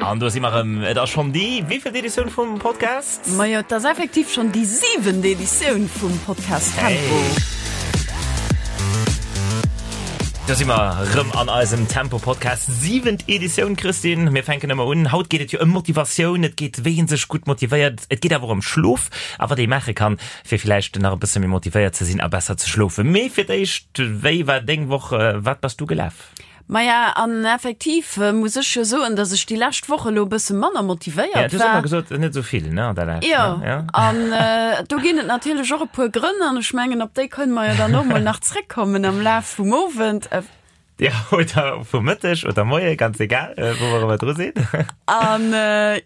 An do si mer erëm. Et ass schonn déi wéivielt Editioun vum Podcast? Majo, et ass effektiv schonn déi siwent Editioun vum Podcast Tempo. Hey. Do si mer erëm an eisem Tempo-Podcast, siwent Editioun, Christine. Mir fänken ëmmer un. Haut geet et jo ëm Motivatioun, et geet wéi ee sech gutt motivéiert, et geet awer och ëm Schlof a wat ee maache kann, fir villäicht nach e bësse méi motivéiert ze sinn a besser ze schlofen. Mee fir d'éischt, wéi war deng Woch? Wat bass du gelaf? Maja, an effektiv muss ech jo soen, dass ech déi lescht Woch elo e bësse manner motivéiert war. Ja, du hues ëmmer gesot, net esou vill, ne, an der Lescht. Jo, ja. An do ginn et natierlech och e puer Grënn, an ech mengen, op déi kënne mer jo dann och mol nach zréckkommen am Laf vum Owend. Ja, oder vum Mëtteg oder Moie, ganz egal, wou mer ëmmer dru sinn. An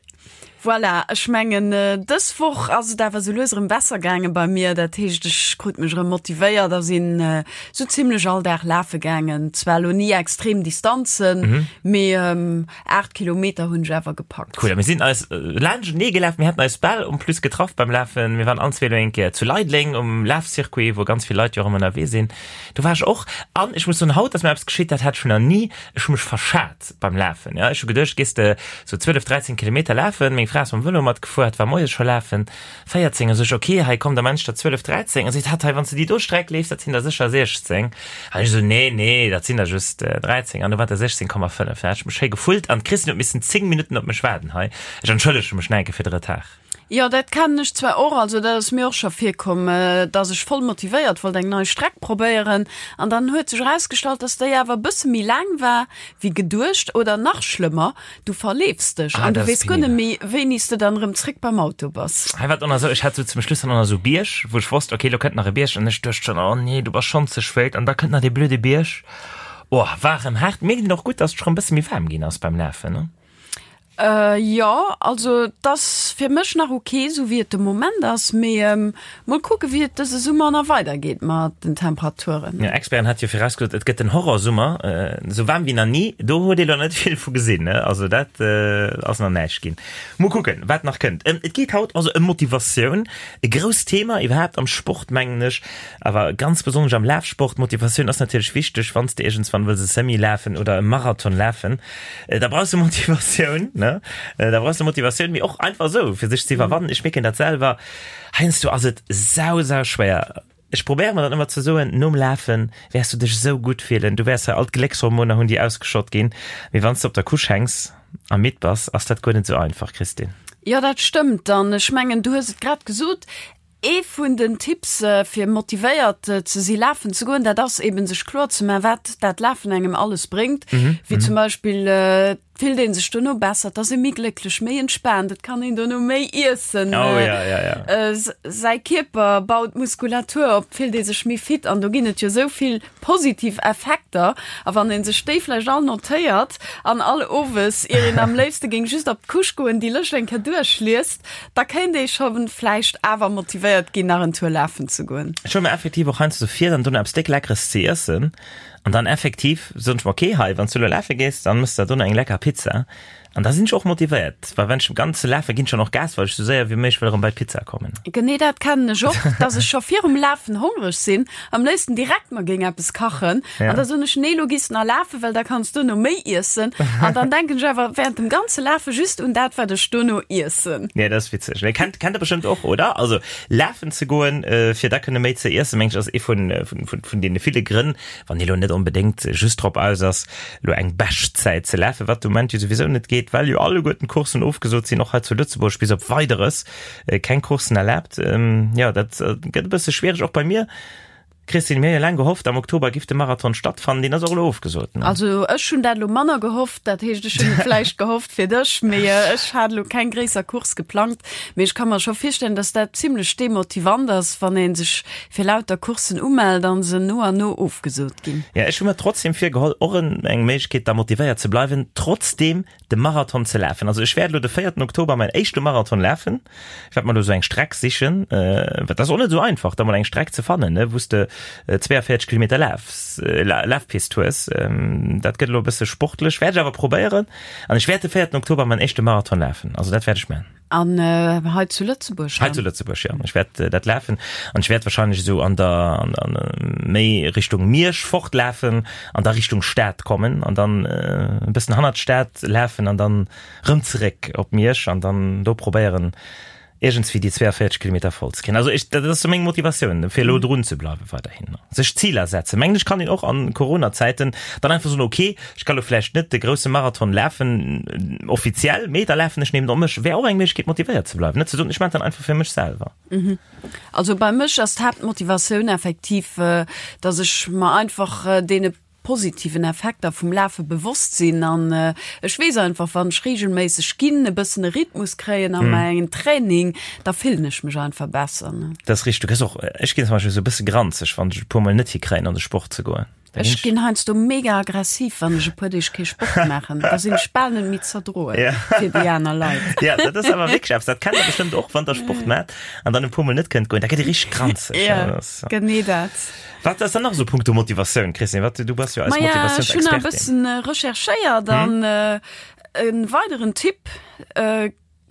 Voilà, ech mengen dës Woch ass et awer sou lues erëm besser gaange bei mir. Dat heescht, ech krut mech erëm motivéiert a sinn sou zimlech all Dag lafe gaangen. Zwar elo ni extrem Distanzen, mee 8 Kilometer hunn ech awer gepackt. Cool, a mir sinn eis laanschtenee gelaf, mir haten eis bal en plus getraff beim Lafen. Mir waren allen zwee elo eng Kéier zu Leideleng um Lafcircuit, wou ganz vill Leit jo och ëmmer ënnerwee sinn. Do war ech och an ech muss soen, haut ass mir eppes geschitt, dat hat ech nach ni, ech hu mech verschat. beim Lafen. Ja, ech hu geduecht, gees de sou 12, 13 Kilometer lafen. Meng Fra ass mam Vëlo matgefuer, hat war moies scho lafen, 14. A sou ech, ok, hei komm, da man ech der 12, 13. A seet hatt, hei, wann s de déi do Streck leefs, dat sinn der sécher 16. An ech sou, nee, nee, dat sinn der just 13. An du war der 16,5. Da hat ech mech schéi gefullt an d'Christine huet missen 10 Minutten op mech waarden hei. Ech entschëllege mech nach eng Kéier fir de Retard. Jo, dat kennen ech zwar och, also dat ass mir och scho virkomm, dass ech voll motivéiert wollt eng nei Streck probéieren an dann huet sech erausgestallt, dass déi awer e bësse méi laang war wéi geduecht oder nach schlëmmer, du verleefs dech Ah, an du dat ass weess guer net penibel. méi, wéini s de dann erëm zréck beim Auto bass. Hei war et och nach esou, ech hat sou zum Schluss dann och nach esou Bierg, wou ech wosst, okay, lo kënnt nach e Bierg an ech duecht schonn, oh nee, du bass schonn ze spéit an da kënnt nach dee blöde Bierg. Oh, war erëm haart. Mierkt een och gutt, dass et scho rëm e bësse méi waarm ginn ass beim Lafen, ne? Jo, also et ass fir mech nach ok esou wéi et de Moment ass, mee mol kucke wéi et dëse Summer nach weider geet mat den Temperaturen. Jo, Experten hat jo virausgesot, et gëtt den Horrorsummer, esou waarm wéi nach ni. Do huet ee lo net vill vu gesinn, ne? Also dat ass nach näischt ginn. Mol kucken, wat nach kënnt. Et geet haut also ëm Motivatioun, e grousst Thema iwwerhaapt am Sport, mengen ech, awer ganz besonnesch am Lafsport. Motivatioun ass natierlech wichteg, wann s de iergendswann wëlls e Semi lafen oder e Marathon lafen. Da brauchs du Motivatioun, ne? Da brauchs du Motivatioun, mee och einfach esou, fir sech ze iwwerwannen. Ech mierken dat selwer, heiansdo ass et sau, sau schwéier. Ech probéiere mer dann ëmmer ze soen, nom Lafe wäers du dech esou gutt fillen, du wäers hei all d'Gléckshormoner hunn, déi ausgeschott ginn. Mee wann s du op der Couche hänks a midd bass, ass dat guer net esou einfach, Christine. Jo, dat stëmmt. An ech mengen, du hues et grad gesot, Ee vun den Tipps fir motivéiert ze si lafen ze goen, dat ass eben sech kloer ze man, wat dat Lafen engem alles bréngt. Wéi zum Beispill et fillt een sech dono besser, et ass ee méi glécklech, méi entspaant, et kann een dono méi iessen, säi Kierper baut Muskulatur op, et fillt ee sech méi fit an do ginn et jo esou vill positiv Effekter. A wann ee sech déi vläicht all notéiert an all Owes, ier een am léifste géing just op d'Couche goen, déi Lëscht eng Kéier duerchliest, Da kéint ee scho vläicht awer motivéiert ginn, nach en Tour lafen ze goen. Ech huele mer effektiv och heiansdo vir, dann dono eppes déck Leckeres ze iessen. An dann effektiv soen ech mer, okay, hei, wann s du elo lafe gees, dann mëss der dono eng lecker Pizza. An da sinn ech och motivéiert, well wann ech ganz lafe ginn, schon och Gas, well ech sou séier wéi méiglech wëll erëm bei d'Pizza kommen. Genee dat kennen ech och, dass ech scho virum Lafen hongreg sinn, am léifsten direkt mer géing eppes kachen. An da soen ech, nee, lo gees de nach lafen, well da kanns duerno méi iessen. An dann denken ech awer während dem ganze Lafe just un dat, wat ech duerno iessen. Nee, dat ass witzeg. Mee kennt, kennt der bestëmmt och, oder? Also lafen ze goen, fir da kënne méi ze iessen, mengen ech, ass ee vun, vun, vun, vun deene ville Grënn, wann ee lo net onbedéngt just drop aus ass, lo eng Beschtzäit ze lafen, wat de Moment jo souwisou net geet, well jo alleguerten d'Courssen ofgesot sinn, och hei zu Lëtzebuerg bis op Weideres keng Courssen erlaabt. Jo, dat gëtt e bësse schwiereg, och bei mir. Christine, mir hu jo laang gehofft, am Oktober giff de Marathon stattfannen, deen ass och elo ofgesot, ne? Also ech hunn dat elo manner gehofft, dat heescht ech hunn et vläicht gehofft fir dech, mee ech hat elo keng gréisser Course geplangt. Mee ech ka mer scho virstellen, datt dat zimlech demotivant ass, wann ee sech fir lauter Courssen umellt an se no an no ofgesot ginn. Ja, ech hu mer trotzdem virgeholl, och eng Méiglechkeet da motivéiert ze bleiwen, trotzdem de Marathon ze lafen. Also ech wäert elo de véierten Oktober mäin éischte Marathon lafen. Ech wäert mer elo sou eng Streck sichen, well dat ass och net esou einfach, da mol eng Streck ze fannen, ne, wou s de. 42 Kilometer Laf, Lafpist hues. Dat gëtt elo e bësse sportlech, wäert ech awer probéieren. An ech wäert de 4 Oktober mäin éischte Marathon lafen, also dat wäert ech maachen. An hei zu Lëtzebuerg dann? Hei zu Lëtzebuerg, jo. Ech wäert dat lafen an ech wäert wahrscheinlech esou an der, an, an, méi Richtung Miersch fortlafen an da Richtung Stad kommen an dann e bëssen hannert d'Stad lafen an dann rëm zeréck op Miersch an dann do probéieren, iergendswéi déi 42 Kilometer voll ze kréien. Also ech, dat ass sou meng Motivatioun, fir elo drun ze bleiwen weiderhin. Sech Ziler setzen. Mengen ech kann een och an Corona-Zäiten dann einfach soen, okay, ech ka lo vläicht net de grousse Marathon lafen, offiziell, mee da lafen ech nemen op mech. Wär och eng Méiglechkeet motivéiert ze bleiwen, net ze soen, ech maachen dat einfach fir mech selwer. Also bei mech ass d'Haaptmotivatioun effektiv, dass ech mer einfach deene positiven Effekter vum Lafe bewosst sinn an ech weess einfach, wann ech reegelméisseg ginn, e bëssen e Rhythmus kréien a mäin Training, da fillen ech mech einfach besser. Dat ass richteg. Du gëss och, ech ginn zum Beispill esou e bësse granzeg, wann ech e puer mol net hikréien an de Sport ze goen. Da ginn Ech ginn heiansdo mega aggressiv, wann ech e puer Deeg kee Sport maachen. Da sinn ech bal net méi z'erdroen fir déi aner Leit. Ja, dat ass awer wierklech eppes, dat kennt der bestëmmt och, wann der Sport maacht an dann e puer mol net kënnt goen, da gëtt ee richteg granzeg. Ja, genee dat. Wat ass dann nach esou punkto Motivatioun, Christine? Wat, du bass jo eis Maja, ech hunn nach e bëssen recherchéiert an e weideren Tipp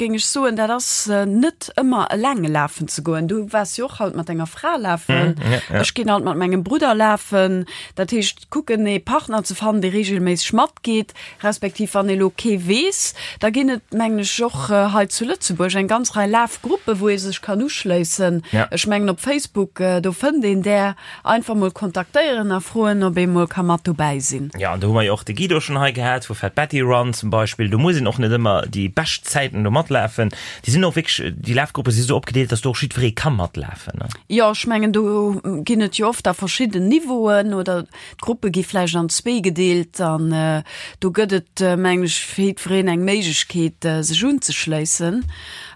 géing ech soen, dat ass net ëmmer eleng lafen ze goen. Du waars jo och haut mat denger Fra lafen. Ech ginn alt mat mengem Brudder lafen. Dat heescht kucken ee Partner ze fannen, dee reegelméisseg matgeet, respektiv wann ee lo kee weess, da ginn et mengen ech och hei zu Lëtzebuerg eng ganz Rei Lafgruppe wou ee sech kann uschléissen. Ech mengen op Facebook, do fënnt een där. Einfach mol kontaktéieren a froen ob ee mol ka mat dobäi sinn. Jo, an do hu mer jo och de Guido schonn hei gehat vu Fat Betty Run zum Beispill. Do muss een och net ëmmer déi bescht Zäiten do matlafen. Déi sinn och wierklech, déi Lafgruppe si sou opgedeelt, dass do och jiddweree ka matlafen, ne? Jo, ech mengen do ginn et jo oft da verschidden Niveauen oder d'Gruppe gi vläicht an zwee gedeelt an do gëtt et mengen ech fir jiddwereen eng Méiglechkeet sech unzeschléissen.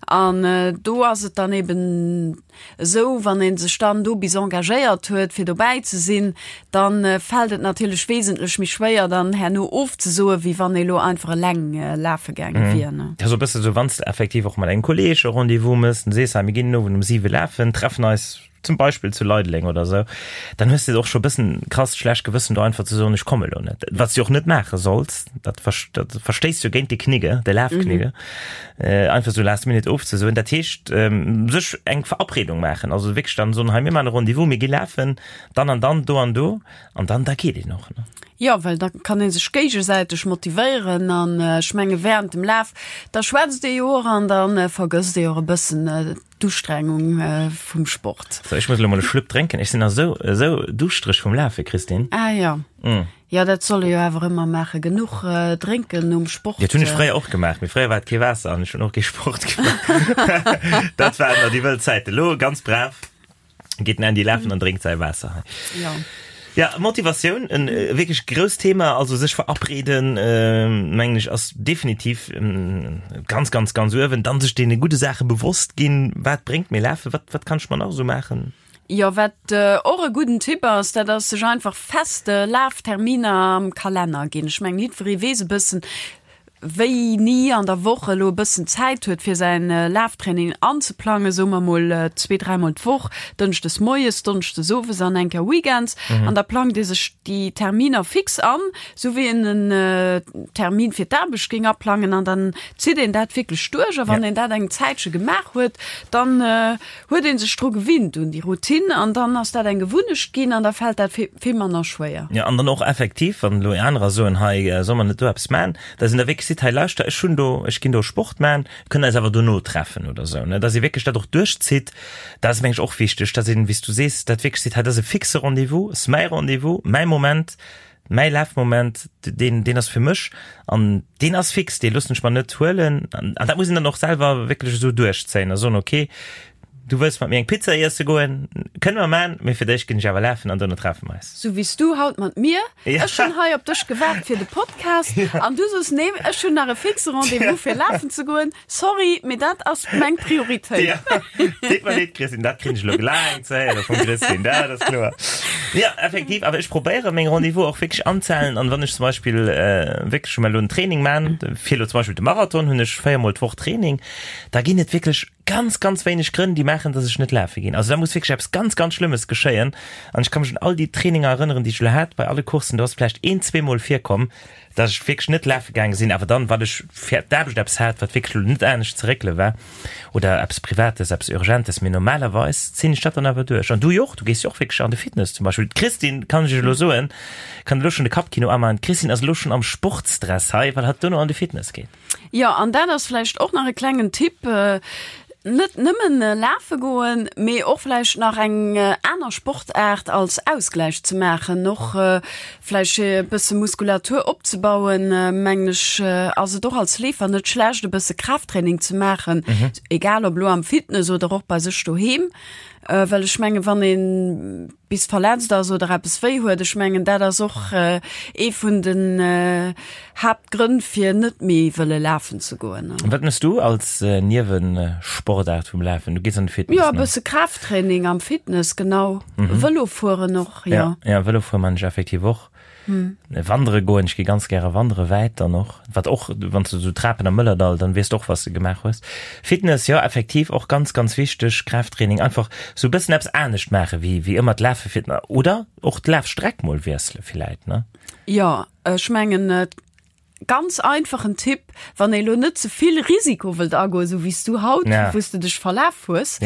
An do ass et dann eben Esou, wann ee sech dann do bis engagéiert huet, fir dobäi ze sinn, da fält et natierlech wesentlech méi schwéier, dann herno ofzesoen, wéi wann ee lo einfach eleng lafe gaange wier. Dat ass e bësse sou, wann s de effektiv och mat engem Kolleeg e Rendez-vous méchs, dann sees, hei mir ginn den Owend um siwe lafen, treffen eis zum Beispill zu Leideleng oder esou, dann hues de och scho e bëssen krasst schlecht Gewëssen, do einfach ze soen, ech komme lo net. Wat s de och net maache solls, dat verstéisst jo géint de Knigge, de Lafknigge. Einfach sou last minute ofzesoen. Dat heescht, sech eng Verabredung maachen, also wierklech dann soen, hei mir maachen e Rendez-vous, mir gi lafen, dann an dann, do an do, an dann da geet een och, ne? Jo, well da kann ee sech géigesäiteg motivéieren an ech menge während dem Laf, da schwätzt ee jo och an da vergësst ee och e bëssen d'Ustrengung vum Sport. So, ech muss elo mol e Schlupp drénken, ech sinn nach esou, esou duuschtereg vum Lafe, Christine. Ah jo. Jo, dat soll ee jo awer ëmmer maachen, genuch drénken nom Sport. Dat hunn ech fréier och gemaach, mee fréier war et kee Waasser an ech hunn och kee Sport gemaach. Dat waren nach déi wëll Zäiten. Elo ganz brav geet den Andy lafen an drénkt säi Waasser hei. Jo. Ja, Motivatioun, en wierklech grousst Thema, also sech verabreden, mengen ech, ass definitiv ganz, ganz, ganz uewen. Dann sech deene gudde Saache bewosst ginn, wat bréngt mir Lafen, wat, wat kann ech mer nach esou maachen? Jo, wat och e gudden Tipp ass, dat ass sech einfach fest Lafterminer am Kalenner ginn. Ech mengen, jiddweree weess e bëssen, wéini an der Woch elo e bëssen Zäit huet, fir säin Laftraining anzeplangen, soe mer mol zwee, dräimol d'Woch, dënschdes moies, donneschdes owes an eng Kéier weekends. An da plangt ee sech déi Terminer fix an, sou wéi een en Termin fir d'Aarbecht géing aplangen an dann zitt een dat wierklech duerch. A wann een dat eng Zäitche gemaach huet, dann huet een sech dru gewinnt un déi Routine an dann ass dat eng Gewunnecht ginn an da fält dat vill manner schwéier. Jo, an dann och effektiv, wann elo anerer soen, hei soll mer net do eppes man, dass een da wierklech seet, hei lauschter, ech hunn do, ech ginn do Sport man, kënnen eis awer dono treffen oder esou, ne, dass ee wierklech dat och duerchzitt. Dat ass, meng ech, och wichteg, dass een, wéi s du sees, dat wierklech seet, hei dat ass e fixe Rendez-vous, ass mäi Rendez-vous, mäi Moment, Mäi Lafmoment, deen, deen ass fir mech an deen ass fix, dee loossen ech mer net huelen. An dat muss een dann och selwer wierklech esou duerchzéien a soen, okay, du wëlls mat mir eng Pizza iesse goen, kënne mer man, mee fir d'éischt ginn ech awer lafen an dono treffe mer eis. Sou wéi s du haut mat mir. Ech hunn hei op dech gewaart fir de Podcast an du soos, nee, ech hunn nach e fixe Rendez-vous fir lafen ze goen. Sorry, mee dat ass meng Prioritéit. Ja, deet mer leed, Christine, dat krin ech elo glaang ze héiere vum Christine, dat ass kloer. Ja, effektiv, awer ech probéiere meng Rendez-vous och wierklech anzehalen an wann ech zum Beispill wierklech elo en Training man, fir elo zum Beispill de Marathon, hunn ech véiermol d'Woch Training, da ginn et wierklech. ganz, ganz wéineg Grënn, déi maachen, dass ech net lafe ginn. Also da muss wierklech eppes ganz, ganz Schlëmmes geschéien. An ech ka mech un all déi Traininger erënneren, déi ech elo hat bei alle Courssen, do ass vläicht een, zweemol virkomm, dass ech wierklech net lafe gaange sinn, awer dann, well ech fir d'Aarbecht eppes hat, wat wierklech elo net anescht ze réckele war oder eppes Privates, eppes Urgentes. Mee normalerweis zéien ech dat dann awer duerch. An du jo och, du gees jo och wierklech an de Fitness zum Beispill. D'Christine, kann ech iech elo soen, kann elo schonn de Kappkino amaachen, d'Christine ass elo schonn am Sportsdress hei, well hatt duerno an de Fitness geet. Jo, an dat ass vläicht och nach e klengen Tipp, Net nëmmen lafe goen, mee och vläicht nach eng aner Sportaart als Ausgläich ze maachen, och vläicht fir e bësse Muskulatur opzebauen, mengen ech, ass et och als Leefer net schlecht, e bësse Kraafttraining ze maachen, egal ob elo am Fitness oder och bei sech doheem, well ech mengen, wann ee bis verletzt ass oder eppes wéi huet, ech mengen dat ass och ee vun den Haaptgrënn fir net méi wëlle lafen ze goen. Wat mëss du als Niewesportaart vum Lafen? Du gees an de Fitness? Jo, e bësse Kraafttraining am Fitness, genau. Vëlo fueren och, jo. Jo, Vëlo fuere man ech effektiv och. Wandere goen, ech gi ganz gäre wandere, wäit dann och, wat och, wann s du esou Trapen am Mëllerdall, dann weess de och, wat s de gemaach hues. Fitness, jo, effektiv och ganz, ganz wichteg, Kraafttraining, einfach esou e bëssen eppes anescht maache wéi, wéi ëmmer d'Lafe fir, oder och d'Lafstreck mol wiessele villäit, ne? Jo, ech mengen, ganz einfachen Tipp, wann ee lo net ze vill Risiko wëllt agoen, esou wéi s du haut, wou s de dech verlaf hues,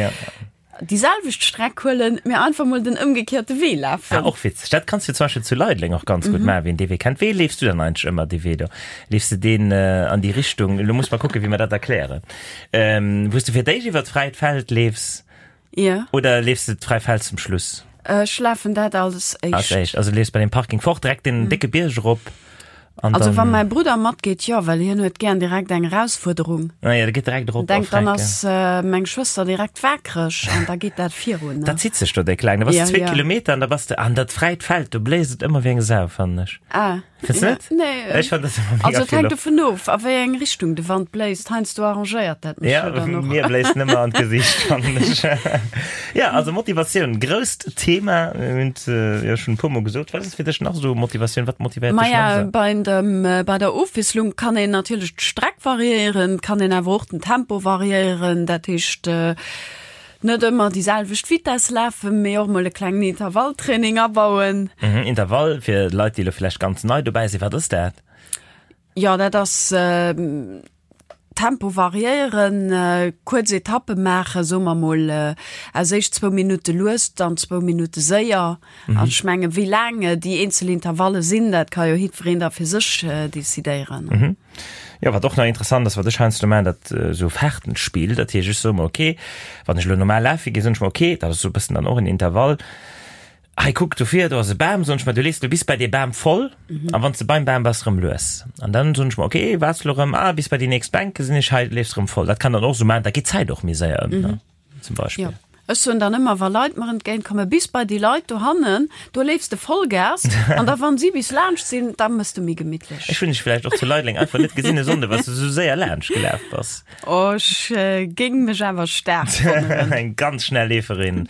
déi selwecht Streck huelen, mee einfach mol den ëmgekehrte Wee lafen. Ah, och witzeg. Dat kanns du zum Beispill zu Leideleng och ganz gutt maachen, wien dee Wee kennt. Wéi leefs du dann eigentlech ëmmer dee Wee do? Leefs de deen an déi Richtung, elo muss mer kucken, wéi mer dat erklären, wou s de fir d'éischt iwwer d'fräit Feld leefs? Ja. Oder leefs de d'fräi Feld zum Schluss? Ech lafen dat als éischt. Als éischt, also leefs bei dem Parking fort, direkt den décke Bierg erop. An also wann mäi Brudder matgeet, jo, well hien huet gären direkt eng Erausfuerderung. Ah ja, der geet direkt erop. Denkt, dann ass äh, meng Schwëster direkt waakreg an da geet dat virun. Dat zitt sech do déck laang. Da bass ja, zwee ja. Kilometer an da bass de an dat fräit Feld, do bléist et ëmmer wéi eng Sau, fannen ech. Ah. Findest du net? Nee. Ech fand das immer mega Also et vill hänkt Loft. dovun of, a wéi eng Richtung de Wand bléist. Heiansdo arrangéiert dat mech Ja, jo dann och. mir bléist nëmme an d'Gesicht, fannen ech. Ja, also Motivatioun, grousst Thema. Mir hunn et jo schonn e puermol gesot. Wat ass fir dech nach esou Motivatioun? Wat motivéiert dech nach Maja, esou? bei dem, bei der Ofwiesslung kann een natierlech d'Streck variéieren, kann een awer och den Tempo variéieren. Dat heescht, Net ëmmer déi selwecht Vitess lafen, mee och mol e klengen Intervalltraining abauen. Mhm, Intervall, fir Leit, déi elo vläicht ganz nei dobäi sinn, wat ass dat? Jo, dat ass Tempo variéieren, kuerz Etappe maachen, soe mer mol aus éischt zwou Minutte lues, dann zwou Minutte séier. An ech mengen, wéi laang déi eenzel Intervalle sinn, dat ka jo jiddwereen da fir sech decidéieren. Jo, wat och nach interessant ass, wat ech heiansdo maachen, dat esou Fahrtenspiel, dat heescht, ech soe mer, ok, wann ech elo normal lafe ginn, soen ech mer, ok, dat ass esou e bëssen dann och en Intervall, hei kuck, dofir, do ass e Bam, soen ech mer, du leefs elo bis bei dee Bam voll, a wann s de beim Bam bass, erëm lues. An dann soen ech mer, ok, waarts elo erëm, ah, bis bei déi nächst Bänk gesinn ech, hei leefs erëm voll. Dat kann dann och esou maachen, da geet d'Zäit och méi séier ëm, ne? Zum Beispill. Jo. Ech soen dann ëmmer, wa Leit mer entgéint kommen, bis bei déi Leit dohannen, do leefs de Vollgas an da wann si bis laanscht sinn, da mëss de méi gemittlech. Ech hunn dech vläicht och zu Leideleng einfach net gesinn e Sonnde, well s de esou séier laanscht gelaf bass. Oh, ech géing mech awer staark wonneren. Eng ganz schnell Leeferin.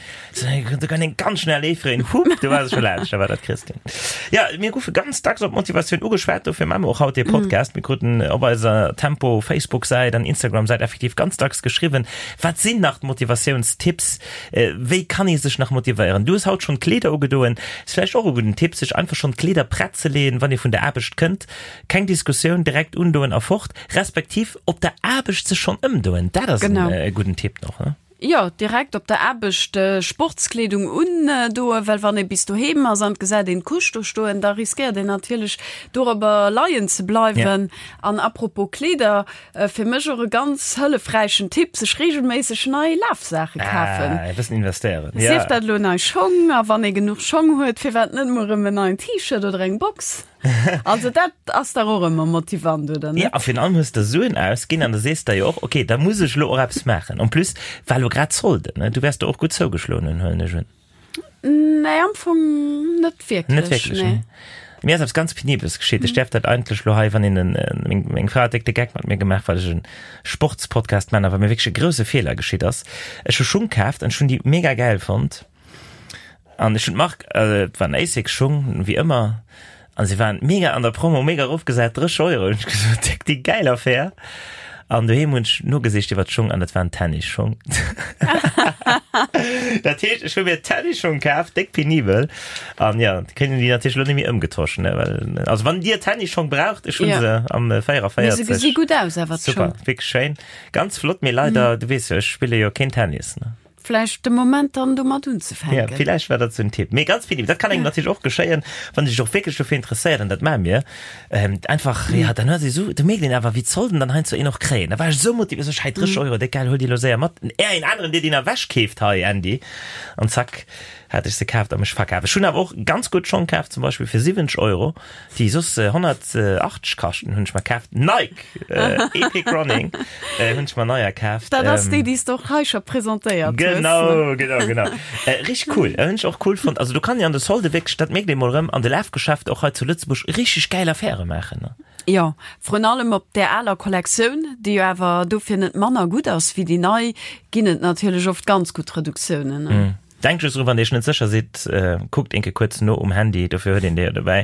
Do kann eng ganz schnell Leeferin, hup, du war se scho laanscht, da war dat d'Christine. Ja, mir goufe ganz dacks op Motivatioun ugeschwat, dofir maache mer och haut dee Podcast. Mir kruten op eiser Tempo Facebook-Säit an Instagram-Säit effektiv ganz dacks geschriwwen, Wat sinn nach d'Motivatiounstipps? Wéi kann ee sech nach motivéieren? Du hues haut schonn d'Kleeder ugedoen. Ass vläicht och e gudden Tipp, sech einfach schonn d'Kleeder prett ze leeën, wann ee vun der Aarbecht kënnt. Keng Diskussioun, direkt undoen a fort. Respektiv op der Aarbecht sech schonn ëmdoen. Dat ass e gudden Tipp nach, ne? Jo, direkt op der Aarbecht Sportskleedung undoen, well wann ee bis doheem ass an et gesäit een d'Couche do stoen, da riskéiert een natierlech dorobber leien ze bleiwen. An apropos Kleeder, Fir mech och e ganz hëllefräichen Tipp, sech regelméisseg nei Lafsaache kafen. Ah, e bëssen investéieren. Ja. Sief dat elo nei Schong, a wann ee genuch Schong huet, firwat net mol erëm en neien T-Shirt oder eng Box? Also dat ass dach och ëmmer motivant, oder net? Ja, a virun allem hues de Suen ausginn an da sees de jo och, okay, da muss ech elo och eppes maachen. En plus war elo grad Solde, ne? Du wäers do och gutt zougeschloen hunn, huelen ech un. Nee, am Fong net wierklech. Net wierklech, nee. Mir ass eppes ganz Penibeles geschitt. Ech däerf dat eigentlech lo hei, wann een en, meng, meng Fra huet déck de Geck mat mir gemaach, well ech e Sportspodcast man, awer mir wierklech e grousse Feeler geschitt ass. Ech hu Schung kaaft an ech hunn déi mega gäil fonnt. An ech hunn d'Mark, et waren Asics Schung, wéi ëmmer, an se waren mega an der Promo, mega erofgesat, 30 Euro. Hunn ech gesot, déck déi gäil Affär. An doheem hunn ech nogesicht iwwer d'Schong an dat waren Tennisschong. Dat heescht, ech hu mir Tennisschong kaf, déck penibel. An ja, kënnen déi natierlech elo net méi ëmgetosch, ne, well, also wann Dir Tennisschong braucht, ech hu Ja. se am 44. Mee se gesi gutt aus awer, Super, d'Schong. wierklech schéin. Ganz flott, mee leider, du weess jo, ech spille jo keen Tennis, ne. Vläicht de Moment dann domat unzefänken. Ja, villäicht war dat sou en Tipp. Mee ganz penibel, dat kann engem natierlech och geschéien, wann ee sech och wierklech dofir interesséiert, an dat maache mir, ähm, einfach, ja, dann huet ee sou, do mierkt een awer, wéi d'Solden dann heiansdo een och kréien. Da war ech sou motivéiert, sou ech, hei 30 Euro, déck geil, huel déi elo séier mat, är een aneren, dee déi nach ewechkeeft hei, Andy. An zack, hat ech se kaaft a mech verkaf. Ech hunn awer och ganz gutt Schong kaaft, zum Beispill fir 70 Euro, déi soss 180 kaschten, hunn ech mer kaaft. Nike Epic Running hunn ech mer neier kaaft. Dat ass déi, déi s de och hei scho presentéiert hues. Genau, genau, genau. Richteg cool, hunn ech och cool fonnt. Also do kann een an de Solde wierklech, dat mierkt ee mol erëm, an de Lafgeschäfter och hei zu Lëtzebuerg richteg gäil Affäre maachen, ne? Jo, vrun allem op där aler Kollektioun, déi jo awer dofir net manner gutt ass wéi déi nei, ginn et natierlech oft ganz gutt Reduktiounen. Denkt just dru wann dir iech net sécher sidd, kuckt eenke kuerz no um Handy, dofir huet een déi jo dobäi,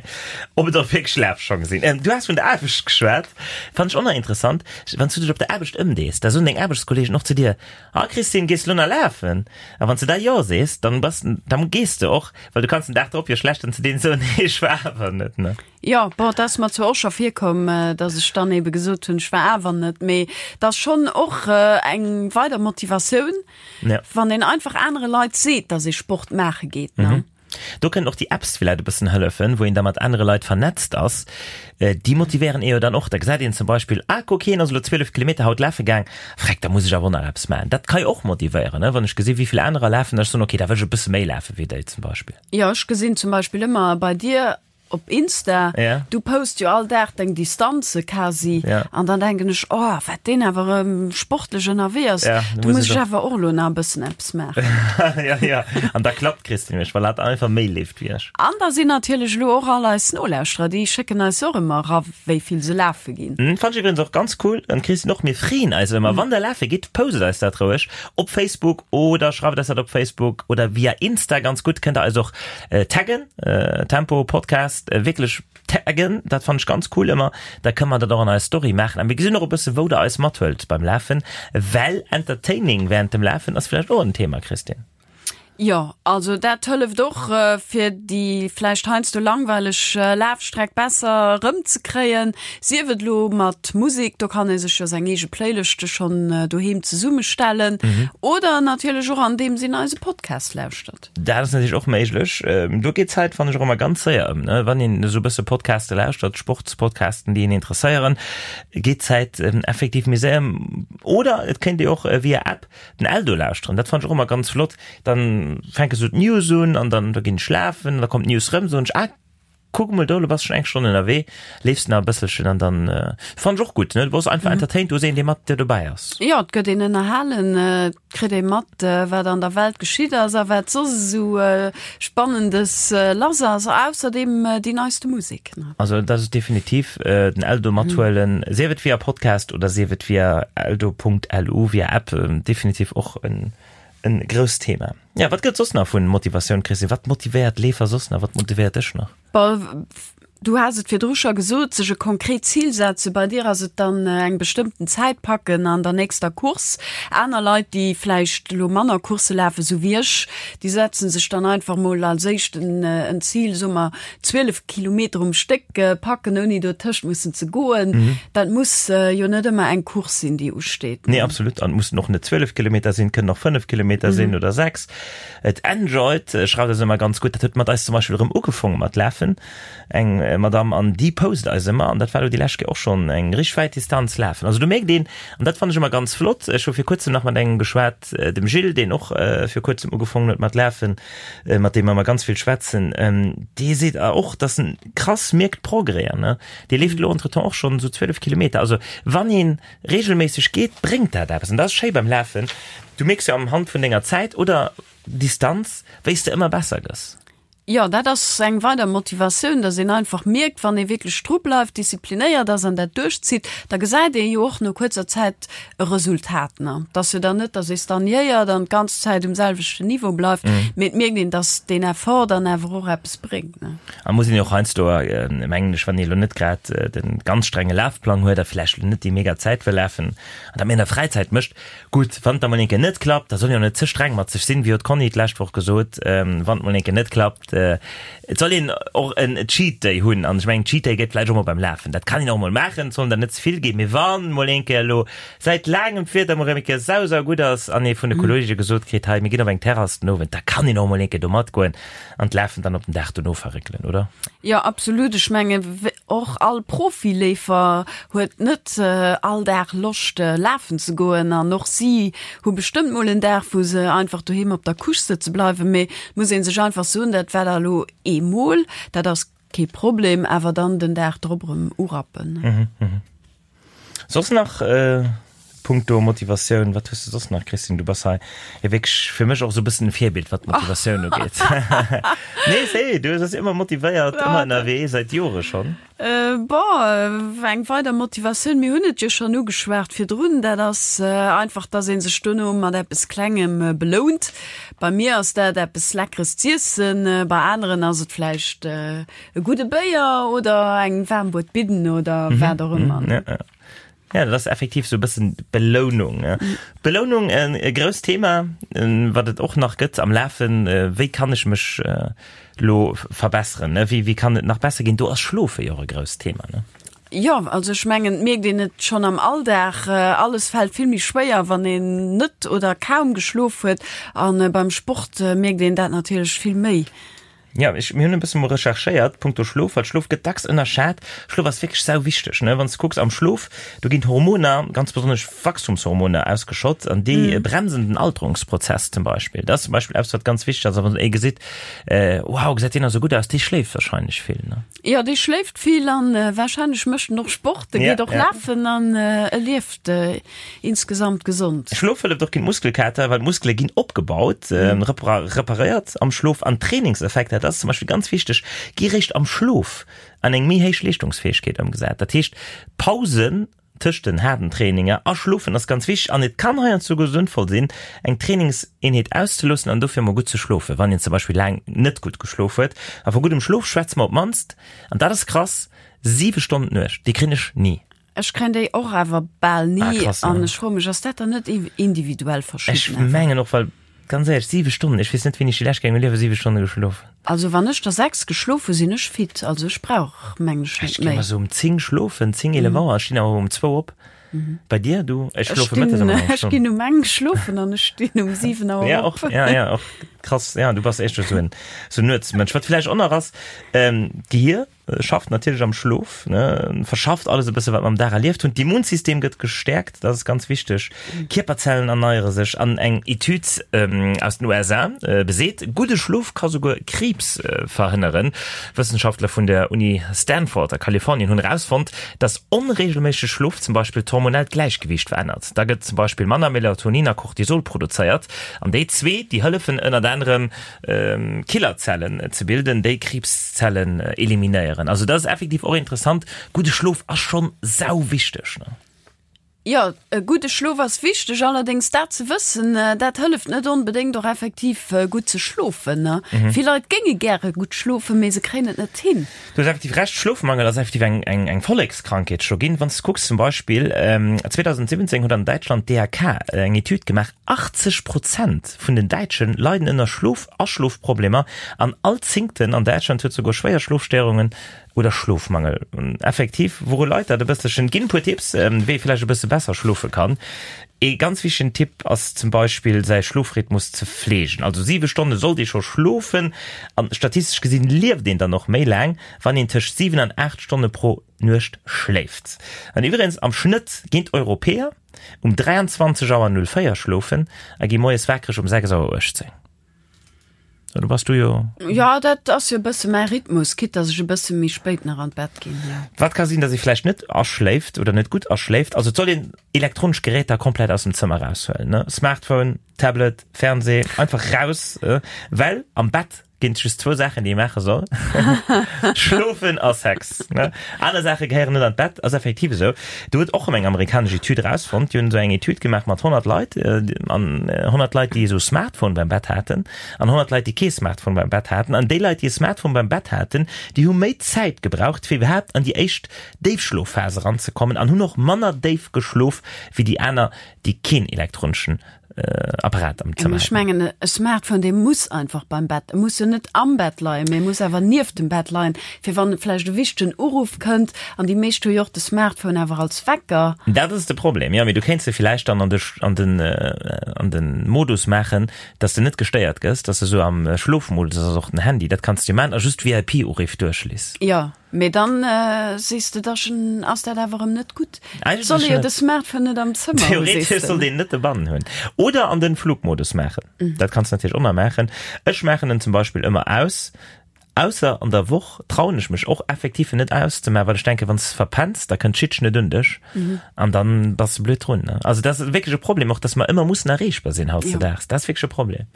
ob et och wierklech Lafschong sinn. Du has vun der Aarbecht geschwat, fannen ech och nach interessant, wann s du dech op der Aarbecht ëmdees, da soen deng Aarbechtskollegen och zu dir, Ah Christine, gees du lo nach lafen? A wann s du da Jo sees, dann bass, dann gees de och, well du kanns den Dag drop jo schlecht dann zu deenen soen, Nee, ech war awer net, ne? Jo, bon, et ass mer zwar och scho virkomm, dass ech dann ebe gesot hunn, ech war awer net, mee et ass schonn och eng weider Motivatioun, Ja. wann een einfach anere Leit seet, dass ee Sport maache geet, ne? Do kënnen och déi Apps villäit e bëssen hëllefen, wou een da mat anere Leit vernetzt ass. Déi motivéieren ee jo dann och. Da gesäit een zum Beispill, ah kuck, hien ass elo 12 Kilometer haut lafe gaang, freck, da muss ech awer och nach eppes maachen. Dat ka jo och motivéieren, ne, wann ech gesi wéi vill anerer lafen, da ech soen, okay, da wëll ech e bësse méi lafe wéi déi zum Beispill. Jo, ech gesinn zum Beispill ëmmer bei dir op Insta, Ja. du post jo all Dag deng Distanze quasi Ja. an dann denken ech, oh wat deen awer erëm sportlech ënnerwee ass, Ja, do muss ech awer och elo nach e bëssen eppes maachen. ja, ja. An da klappt d'Christine mech, well hat einfach méi leeft wéi ech. An da sinn natierlech elo och all eis Nolauschterer, déi schécken eis och ëmmer era wéi vill se lafe ginn. Hm, Fannt ech iwwregens och ganz cool, an d'Christine och, mir freeën eis ëmmer, wann der lafe gitt, postet eis dat roueg op Facebook oder schreift eis dat op Facebook oder via Insta, ganz gutt, kënnt der eis och Taggen, Tempo Podcast, wierklech taggen, dat fannen ech ganz cool ëmmer, da kënne mer dat och an eis Story maachen a mir gesinn och e bësse wou der eis mathuelt beim Lafen, well Entertaining während dem Lafen ass vläicht och en Thema, Christine. Jo, also dat hëlleft och fir déi vläicht heiansdo langweileg Lafstreck besser erëmzekréien, sief et elo mat Musek, do kann ee sech jo seng eege Playlëschte schonn doheem zesummestellen, oder natierlech och andeems een eise Podcast lauschtert. Dat ass natierlech och méiglech. Do geet d'Zäit, fannen ech, och ëmmer ganz séier ëm, ne? Wann een esou e bësse Podcaste lauschtert, Sportspodcasten, déi een interesséieren, geet d'Zäit effektiv méi séier ëm. Oder et kéint ee och via App den Eldo lauschteren. Dat fannen ech och ëmmer ganz flott. Dann fänke sou d'News un an dann da ginn ech schlafen, da kommt d'News rëm, soen ech, ah, kuck emol do, lo bass schonn eng Stonn ënnerwee, leefs nach e bësselchen an dann fannen ech och gutt, ne? Du bass einfach entertained, du hues een, dee mat dir dobäi ass. Jo, et gëtt een ënnerhalen, et kritt ee mat, wat an der Welt geschitt ass a wat soss esou Spannendes lass ass. Ausserdeem déi neiste Musek, ne? Also dat ass definitiv den Eldo mathuelen, sief et via Podcast oder sief et via eldo.lu, via App, definitiv och en en grousst Thema. Ja, wat gëtt soss nach vun Motivatioun, Christine? Wat motivéiert Leefer soss nach? Wat motivéiert dech nach? Bon, du has et virdru scho gesot, sech e konkret Zil setzen. Bei dir ass et dann eng bestëmmten Zäit packen an der nächster Course. Aner Leit, déi vläicht elo manner Coursse lafen, esou wéi ech, déi setzen sech dann einfach mol als éischt en Zil, soe mer 12 Kilometer um Stéck packen, ouni dotëscht mussen ze goen. Dat muss jo net ëmmer eng Course sinn, déi usteet. Nee, absolut. An et mussen och net 12 Kilometer sinn, et kënnen och 5 Kilometer sinn oder 6. Et enjoyed schreift eis ëmmer ganz gutt. Dat huet mat eis zum Beispill erëm ugefonge mat lafen, eng Madamm, an déi post eis ëmmer. An dat war elo déi lescht Kéier och schonn eng richteg wäit Distanz lafen. Also do mierkt een, an dat fannen ech ëmmer ganz flott, ech hu vir kuerzem nach mat engem geschwat, dem Gilles, deen och vir kuerzem ugefongen huet mat lafen, mat deem mer ëmmer ganz vill schwätzen, dee seet och, dass en krass mierkt Progrèsen, ne? Dee leeft elo entretemps och schonn esou 12 Kilometer. Also wann ee reegelméisseg geet, bréngt dat eppes. An dat ass schéi beim Lafen, du mierks jo am Hand vun denger Zäit oder Distanz, wéi s de ëmmer besser gëss. Jo, dat ass eng weider Motivatioun, dass een einfach mierkt, wann ee wierklech dru bleift, disziplinéiert ass an dat duerchzitt, da gesäit ee jo och no kuerzer Zäit e Resultat. Ne? Et ass jo dann net, dass ee stagnéiert an d'ganz Zäit um selwechten Niveau bleift, mee et mierkt een, dass deen Effort dann awer och eppes bréngt. Ne? A muss een jo och heiansdo, mengen ech, wann ee elo net grad de ganz strenge Lafplang huet a vläicht elo net déi mega Zäit wëll lafen an dat méi an der Fräizäit mécht, Gutt, wann et da mol eng Kéier net klappt, da soll een och net ze streng mat sech sinn, wéi huet d'Conny d'lescht Woch gesot, wann et mol eng Kéier net klappt, et soll een och en Cheat Day hunn. An ech mengen, Cheat Day gëtt vläicht och mol beim Lafen, dat kann een och mol maachen, et sollen der net ze vill ginn, mee wann mol eng Kéier elo säit laangem d'Wieder mol erëm eng Kéier sau sau gutt ass an ee vun de Kolleege gesot kritt, hei mir ginn op eng Terrass den Owend, da kann een och mol eng Kéier do matgoen an d'Lafen dann op den Dag dono verréckelen, oder? Jo, absolut. Ech mengen, och all Profileefer huet net all Dag Loscht lafen ze goen an och si hu bestëmmt mol en Dag, wou se einfach doheem op der Couche sëtze bleiwen. Mee et muss ee sech einfach soen, dat war da elo eemol, dat ass kee Problem, awer dann den Dag drop erëm urappen. Soss nach punkto Motivatioun, wat hues de soss nach, Christine? Du bass hei jo wierklech fir mech och esou e bëssen e Virbild, wat d'Motivatioun ugeet. Nee, see, du bass ëmmer motivéiert, ëmmer ënnerwee, säit Jore schonn. Bon, eng weider Motivatioun, mir hunn et jo schonn ugeschwat virdrun, dat ass einfach, dass ee sech dono mat eppes Klengem belount. Bei mir ass dat eppes Leckeres z'iessen, bei aneren ass et vläicht E gudde Béier oder eng waarm Buet Bidden oder wat och ëmmer. Ja, ja. Ja, dat ass effektiv sou e bëssen d'Belounung. Belounung, e grousst Thema, wat et och nach gëtt am Lafen. Wéi kann ech mech lo verbesseren? Wéi, wéi kann et nach besser ginn? Do ass Schlofe jo och e grousst Thema, ne? Jo, also ech mengen, et mierkt een et schonn am Alldag, alles fält vill méi schwéier, wann een net oder kaum geschlof huet. A beim Sport mierkt een dat natierlech vill méi. Jo, ech, mir hunn e bësse mol recherchéiert punkto Schlof, well Schlof gëtt dacks ënnerschat. Schlof ass wierklech sau wichteg, ne? Wann s de kucks am Schlof, do ginn d'Hormoner, ganz besonnesch Wachstumshormoner ausgeschott an déi bremsen den Alterungsprozess zum Beispill. Dat ass zum Beispill eppes, wat ganz wichteg ass. A wann ee gesitt, wow, gesäit deen nach esou gutt aus, dee schléift warscheinlech vill, ne? Jo, dee schléift vill an warscheinlech mécht en och Sport, e geet och lafen an e lieft Insgesamt gesond. Schlof hëlleft och géint Muskelkater, well d'Muskele ginn opgebaut, reparéiert am Schlof an d'Trainingseffekter, dat ass zum Beispill ganz wichteg, gi réischt am Schlof an eng méi héich Leeschtungsfäegkeet ëmgesat. Dat heescht, Pausen tëscht den haarden Traininger a Schlofen ass ganz wichteg an et kann heiansdo souguer sënnvoll sinn, eng Trainingseenheet auszeloossen an dofir emol gutt ze schlofen, wann een zum Beispill laang net gutt geschlof huet. A vu guddem Schlof schwätze mer op d'mannst, an dat ass krass, 7 Stonnen d'Nuecht. Déi kréien ech ni. Ech kréien déi och awer bal ni. Ah, krass, an ech froe mech, ass dat dann net individuell verschidden? Ech mengen och, well ganz éierlech, 7 Stonnen, ech weess net, wéini ech déi lescht Kéier a mengem Liewe 7 Stonne geschlof hunn. Also wann ech der 6 geschlof hunn, sinn ech fit. Also ech brauch, mengen ech, net méi. Ech gi mer sou um 10 schlofen, 10, 11 Auer, ech stinn awer um 2 op. Bei dir, du? Ech schlofe mëttes ëmmer eng Stonn. Ech ginn um eng schlofen an ech stinn um 7 Auer op. Ja, och, ja, ja, och krass. Ja, du bass éischter sou en, sou en Nuetsmënsch. Wat vläicht och nach ass, d'Gehir. Schafft natierlech am Schlof, ne, verschafft alles e bësse wat mer am Dag erlieft hunn. D'Immunsystem gëtt gestäerkt, dat ass ganz wichteg. Kierperzellen erneiere sech an eng Etüd aus den USA beseet, gudde Schlof ka souguer Kriibs verhënneren. Wëssenschaftler vun der Uni Stanford a Kalifornien hunn erausfonnt, dass onreegelméissege Schlof zum Beispill d'hormonellt Gläichgewiicht verännert. Da gëtt zum Beispill manner Melatonin a Cortisol produzéiert an déi zwee, déi hëllefen ënnert anerem Killerzellen ze bilden, déi Kriibszellen eliminéieren. Also dat ass effektiv och interessant. Gudde Schlof ass schonn sau wichteg, ne? Jo, e gudde Schlof ass wichteg. Allerdéngs dat ze wëssen, dat hëlleft net onbedéngt och effektiv gutt ze schlofen, ne? Vill Leit géinge gäre gutt schlofen, mee se kréien et net hin. Du hues effektiv Recht, Schlofmangel ass effektiv eng, eng, eng Vollekskrankheet scho ginn. Wann s de kucks zum Beispill, 2017 huet an Däitschland d'DAK eng Etüd gemaach, 80 Prozent vun den Däitschen leiden ënner Schlof Aschlofproblemer an all Zéngten an Däitschland huet souguer schwéier Schlofstéierungen oder Schlofmangel. Effektiv, wouru leit dat e bësselchen? Ginn e puer Tipps, wéi ee vläicht e bësse besser schlofe kann. Ee ganz wichtegen Tipp ass zum Beispill säi Schlofrhythmus ze fleegen. Also 7 Stonne sollt ee scho schlofen an statistesch gesinn lieft een dann och méi laang, wann een tëscht 7 an 8 Stonne pro Nuecht schléift. An iwweregens am Schnëtt ginn d'Europäer um 23 Auer 04 schlofen a gi moies wakereg um 6 Auer 18. Do bass du jo. Jo, dat ass jo e bësse mäi Rhythmus, quitte dass ech e bësse méi spéit nach an d'Bett ginn, jo. Wat ka sinn, dass ee vläicht net aschléift oder net gutt aschléift? Also et soll een elektronesch Geräter komplett aus dem Zëmmer eraushuelen, ne? Smartphone, Tablet, Fernseh, einfach raus, well am Bett. Ginn et just zwou Saachen, déi ee maache soll, Schlofen a Sex. Ne? Aner Saache gehéieren net an d'Bett, ass effektiv esou. Do huet och erëm eng amerikanesch Etüd erausfonnt, déi hunn esou eng Etüd gemaach mat 100 Leit, an 100 Leit, déi esou Smartphone beim Bett haten, an 100 Leit, déi kee Smartphone beim Bett haten. An déi Leit, déi e Smartphone beim Bett haten, déi hu méi Zäit gebraucht, fir iwwerhaapt an déi éischt Déifschlofphas eranzekommen, an hunn och manner déif geschlof wéi déi aner, déi keen elektroneschen Apparat am Zëmmer Ech mengen e Smartphone dee muss einfach beim Bett, e muss jo net am Bett leien, mee e muss awer nieft dem Bett leien, fir wann vläicht e wichtegen Uruff kënnt. An déi meescht hu jo och de Smartphone awer als Wecker. Dat ass de Problem, jo, mee du kéints e villäicht dann an de an den an den Modus maachen, dass de net gestéiert gëss, dass de sou am Schlofmodus ass, och den Handy, dat kanns de jo maachen a just VIP-Uriff duerchliss. Jo. Mee dann sees de, da ass dat awer erëm net gutt. Et soll ee jo de Smartphone net am Zëmmer hunn, sees de. Theoretesch sollt een net dobannen hunn. Oder an den Flugmodus maachen. Dat kanns de natierlech och nach maachen. Ech maachen en zum Beispill ëmmer aus, ausser an der Woch trauen ech mech och effektiv en net auszemaachen, well ech denken, wann s de verpenns, da kënnt d'Schiedchen net un dech an dann bass de blöd drun. Also dat ass wierklech e Problem och, dass mer ëmmer mussen erreechbar sinn hautzedaags. Dat ass wierklech e Problem.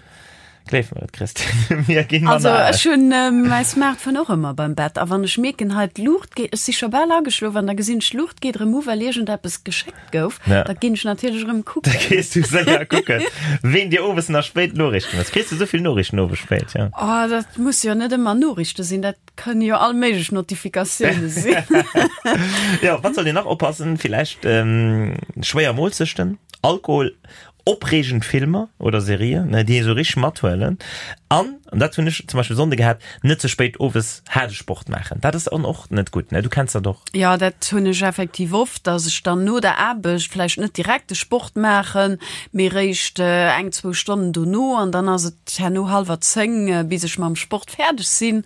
Gleef mer et, Christine, mir ginn Also manner al. ech hunn mäi Smartphone och ëmmer beim Bett a wann ech mierken, hei d'Luucht geet, ech si scho bal ageschlof an da gesinn ech d'Luucht geet erëm u well iergendeppes geschéckt gouf, Ja. da ginn ech natierlech erëm Da kucken. gees du séier kucken, ween dir owes nach spéit Noriichten hues. Kriss du esou vill Noriichten owes spéit, ja? Oh, dat musse jo net ëmmer Noriichte sinn, dat kënne jo all méiglech Notifikatioune sinn. Jo, wat sollt een nach oppassen? Villäicht schwéier Moolzechten, Alkohol Opreegend Filmer oder Serien, ne, déi ee sou richteg mathuelen. An, an dat hunn ech zum Beispill Sonnde gehat, net ze spéit owes haarde Sport maachen. Dat ass dann och net gutt, ne? Du kenns dat och. Jo, dat hunn ech effektiv oft, dass ech dann no der Aarbecht vläicht net direkt de Sport maachen, mee réischt eng, zwou Stonnen dono. An dann ass et herno hallwer 10, bis ech mam Sport fäerdeg sinn.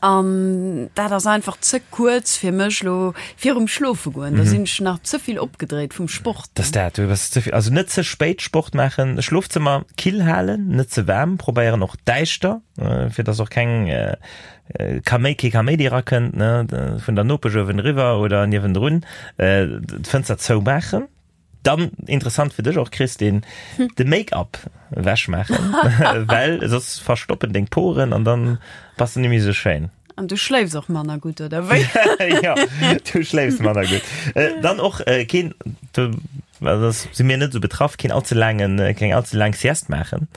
An dat ass einfach ze kuerz fir mech lo virum Schlofe goen. Da sinn ech nach ze vill opgedréit vum Sport. Dat ass dat, du bass ze vill, also net ze spéit Sport maachen, Schlofzëmmer kill halen, net ze waarm, probéieren och däischter, fir dass och keng Kaméi, kee Kaméidi erakënnt, ne, vun der Nopesch uewen eriwwer oder niewendrun, d'Fënster zoumaachen. Dann interessant fir dech och Christine, de Make-up ewech maachen, well soss verstoppen deng Poren an dann bass de nemmi sou schéin. An du schléifs och manner gutt, oder wéi? Jo, du schléifs manner gutt. Dann och keen, do si mir net sou betraff, keen allze laangen, keng allze laang Sieste maachen.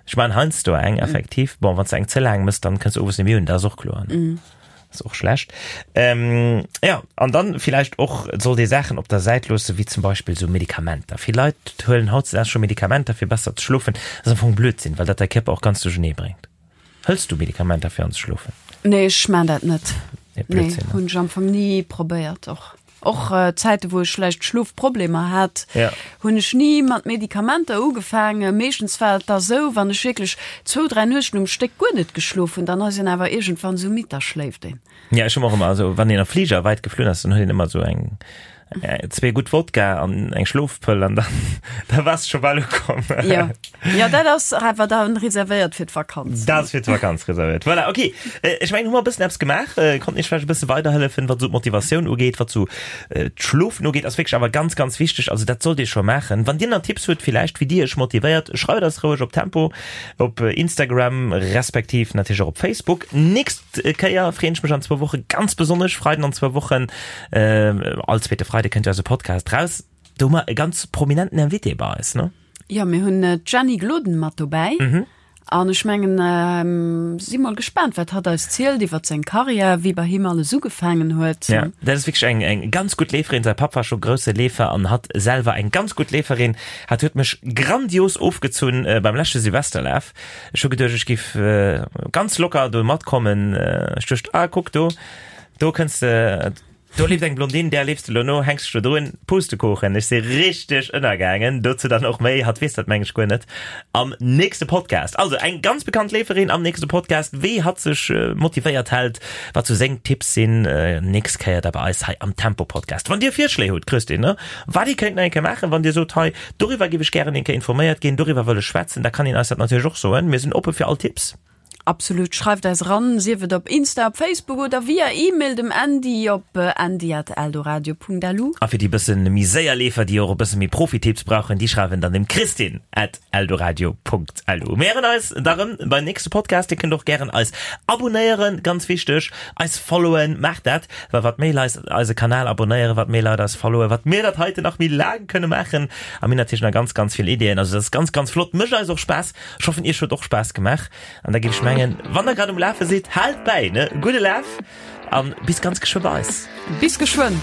Ech maachen heiansdo eng, effektiv. Bon, wann s de eng ze laang mëss, dann kënns de owes nemmi un, dat ass och kloer. Ass och schlecht. Ähm, ja, an dann vielleicht och sollt ee Saachen op der Säit loossen, wéi zum Beispill sou Medikamenter. Vill Leit huelen hautzedags scho Medikamenter fir besser ze schlofen. Dat ass am Fong Blödsinn, well dat däi Kierper och ganz duerchenee bréngt. Hëls du Medikamenter fir anzeschlofen? Nee, ech maan dat net. Nee, Nee, Blödsinn, ne? hunn ech am Fong ni probéiert och. Och Zäite wou ech vläicht Schlofproblemer hat, hunn ech ni mat Medikamenter ugefaangen. Meeschtens war et da sou, wann ech wierklech zwou, 3 Nuechten um Stéck guer net geschlof hunn, dann ass een awer iergendwann sou midd, da schléift een. Ja, ech hunn och ëmmer, also wann een am Fliger wäit geflunn ass, dann huet een ëmmer sou eng, zwee gutt Wodka an eng Schlofpëll an dann, da bass de scho bal ukomm. Jo. Jo, dat ass awer dann reservéiert fir d'Vakanz. Dat ass fir d'Vakanz reservéiert. Voilà, ok. Ech mengen, hu mer e bëssen eppes gemaach, konnten Iech vläicht e bësse weiderhëllefen, wat esou d'Motivatioun ugeet, wat esou d'Schlofen ugeet, ass wierklech awer ganz, ganz wichteg. Also dat sollt Dir scho maachen. Wann Dir nach Tipps hutt villäicht, wéi Dir Iech motivéiert, schreift eis roueg op Tempo, op Instagram respektiv natierlech och op Facebook. Nächst Kéier freeën ech mech an zwou Woche ganz besonnesch, Freiden an zwou Wochen, all zweete Freide kënnt jo eise Podcast raus. Do hu mer e ganz prominenten Invité bei eis, ne? Jo, mir hunn d'Jenny Gloden mat dobäi. Mhm. An ech mengen, si mol gespaant, wat hatt eis zielt iwwer seng Karriär, wéi bei him alles ugefaangen huet. Ja, dat ass wierklech eng, eng ganz gutt Leeferin. Säi Papp war scho grousse Leefer an hatt selwer eng ganz gutt Leeferin. Hatt huet mech grandios ofgezunn beim leschte Silvesterlaf. Ech hu geduecht, ech giff ganz locker do matkommen. Ech duecht, ah, kuck do, do kënns de, Do leeft eng Blondine, där leefs de lo no, hänks dech do drun, Pustekuchen, ech si richteg ënnergaangen, dozou dann och méi, hatt weess dat meng ech guer net, am nächste Podcast. Also eng ganz bekannt Leeferin am nächste Podcast, wéi hatt sech motivéiert hält, wat sou seng Tipps sinn, nächst Kéier da bei eis hei am Tempo Podcast. Wann dir Virschléi hutt, Christine, ne, wat ee kéint nach eng Kéier maachen, wann dir sot, hei doriwwer giff ech gären eng Kéier informéiert ginn, doriwwer wëll ech schwätzen, da kann een eis dat natierlech och soen, mir sinn oppe fir all Tipps. Absolut, schreift eis eran, sief et op Insta, op Facebook oder via E-Mail dem Andy op andy@eldoradio.lu. A fir déi bëssen méi séier Leefer, déi och e bësse méi Profi-Tipps brauchen, déi schreiwen dann dem Christine at eldoradio.lu. Mir héieren eis da rëm beim nächste Podcast. Dir kënnt och gären eis abonéieren, ganz wichteg, eis followen, maacht dat, well wat méi Leit eise Kanal abonéieren, wat méi Leit eis followen, wat mir dat heiten nach méi laang kënne maachen. A mir hunn natierlech nach ganz, ganz vill Ideeën. Also dat ass ganz, ganz flott, mécht eis och Spaass. Ech hoffen iech huet och Spaass gemaach an da géif ech mengen, wann der grad um Lafe sidd, haalt bäi, ne? Gudde Laf an bis ganz geschwë bei eis. Bis geschwënn!